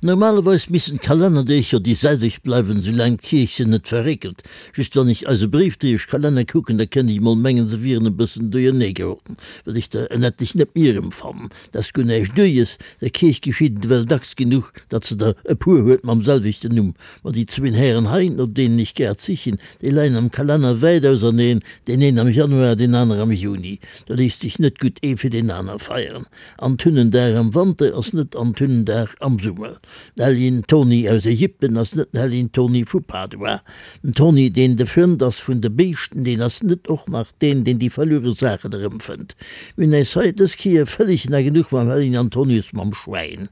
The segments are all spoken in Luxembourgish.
Normalerweis missten d'Kalennerdeeg jo déi selwecht bleiwen, soulaang d'Kierch se net verréckelt. Just wann ech eise Bréifdréieschkalenner kucken, da kënnt ech mol mengen, se wieren e bëssen duerjernee geroden, well ech der en etlech net méi erëmfannen. Dat ass guer näischt Duerjes, der Kierch geschitt et ewell dacks genuch, datt se der e puer huet mam selwechten Numm. Ma déi zwéin Hären hei, no deenen ech grad sichen, déi leien am Kalenner wäit auserneen, deen een am Januar, deen aner am Juni. Do léisst sech net gutt ee fir deen aner feieren. Antunnendag am Wanter ass net Antunnendag am Summer. Den Helljen Toni aus Ägypten ass net den Helljen Toni vu Padua. Den Toni, deen de Frënd ass vun de Béischten, deen ass net och nach deen, deen déi verluere Saachen erëmfënnt. Mir hunn äis hei dës Kéier vëlleg na genuch mam Helljen Antonius mam Schwäin.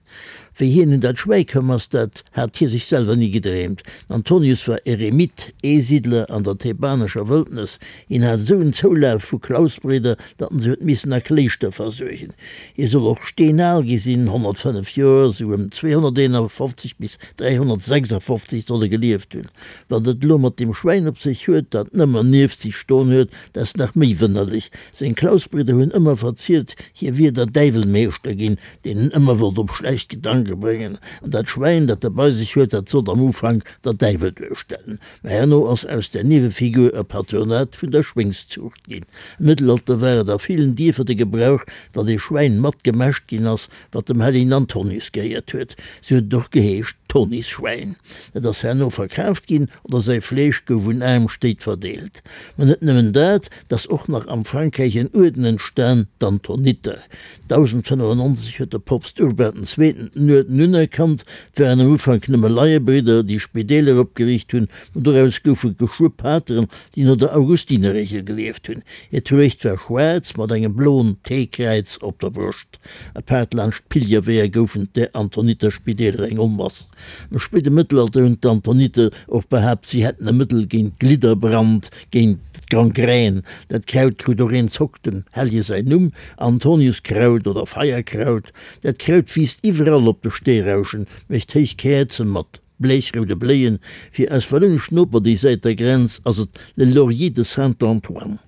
Wéi hien un dat Schwäi koum ass, dat hat hie sech selwer ni gedreemt. Den Antonius war Eremit, Eesiddler an der thebanescher Wëldnes. Hien hat esou en Zoulaf vu Klausbridder, datt en se huet missen a Kléischter versuergen. Hie soll och steenal gi sinn, 105 Joer, esou ëm 251 bis 356 soll e gelieft hunn. Wat et elo mat deem Schwäin op sech huet, dat nëmmer nieft sech stoen huet, dat ass nach méi wënnerlech. Seng Klausbridder hunn ëmmer verzielt, hie wier der Däiwel Meeschter ginn, deen en ëmmer wollt op schlecht Gedanke bréngen. An dat Schwäin, dat e bei sech huet, dat sollt am Ufank der Däiwel duerstellen. Mä herno ass aus där Niewefigur e Patronat vun der Schwéngszuucht ginn. Am Mëttelalter war et a villen Dierfer de Gebrauch, datt ee Schwäin mat gemäscht ginn ass, wat dem Hellegen Antonius gehéiert huet. Sou huet et och geheescht, Tonisschwäin. Dat ass herno verkaaft ginn oder säi Fleesch gouf un aarm Stéit verdeelt. Mä net nëmmen dat, 't ass och nach am Frankräich en Uerden entstan, d'Antoniter. 1095 huet de Poopst Urban den Zweeten den Uerden unerkannt. Et waren am Ufank nëmme Laiebridder, déi Spideeler opgeriicht hunn, ma doraus goufe geschwë Pateren, déi no der Augustinerregel gelieft hunn. Hir Truecht war schwaarz mat engem bloen T-Kräiz op der Broscht. Apaart laanscht d'Pilgerweeër goufen d'är Antoniterspideeler eng Onmass. Am spéide Mëttelalter hunn d'Antoniter och behaapt, si hätten e Mëttel géint Glidderbrand, géint d'Gangrän. Dat Kraut krut och een Zock dem Hellje säin Numm, Antoniuskraut oder Feierkraut. Dat Kraut wiisst iwwerall op de Steerauschen, mécht héich Käerze mat bleechroude Bléien. Fir eis wallounesch Noper déi Säit der Grenz ass et le laurier de Saint-Antoine.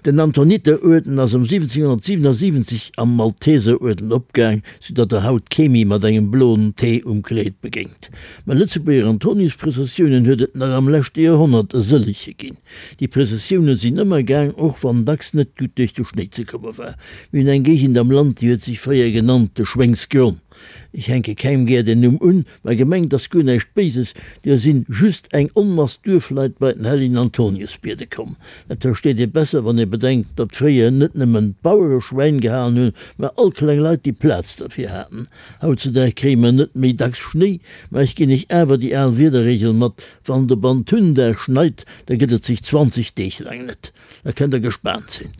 Den Antoniteruerden ass ëm 1777 am Malteseruerden opgaang, sou datt der haut kee méi mat engem bloen T um Kleed begéint. Mä Lëtzebuerger Antoniusprëssessiounen huet et nach am leschte Joerhonnert e sëllege ginn. Déi Prëssessioune sinn ëmmer gaang, och wann dacks net gutt duerch de Schnéi ze komme war. Mir hunn eng Géigend am Land, déi huet sech fréier genannt de Schwéngsgronn. Ech hänke kengem gär den Numm un, mä gemengt ass guer näischt Béises, duer sinn just eng Onmass Duerfleit bei den hellegen Antonius biede komm. Dat versteet ee besser, wann ee bedenkt, datt fréier net nëmmen d'Bauere Schwäin gehalen hunn, mä all kleng Leit, déi Plaz derfir haten. Hautzudag kréie mer net méi dacks Schnéi, mä ech ginn iech awer déi al Wiederregel mat, Wann et op Antundag schneit, da gëtt et sech 20 Deeg laang net. Da kënnt der gespaant sinn.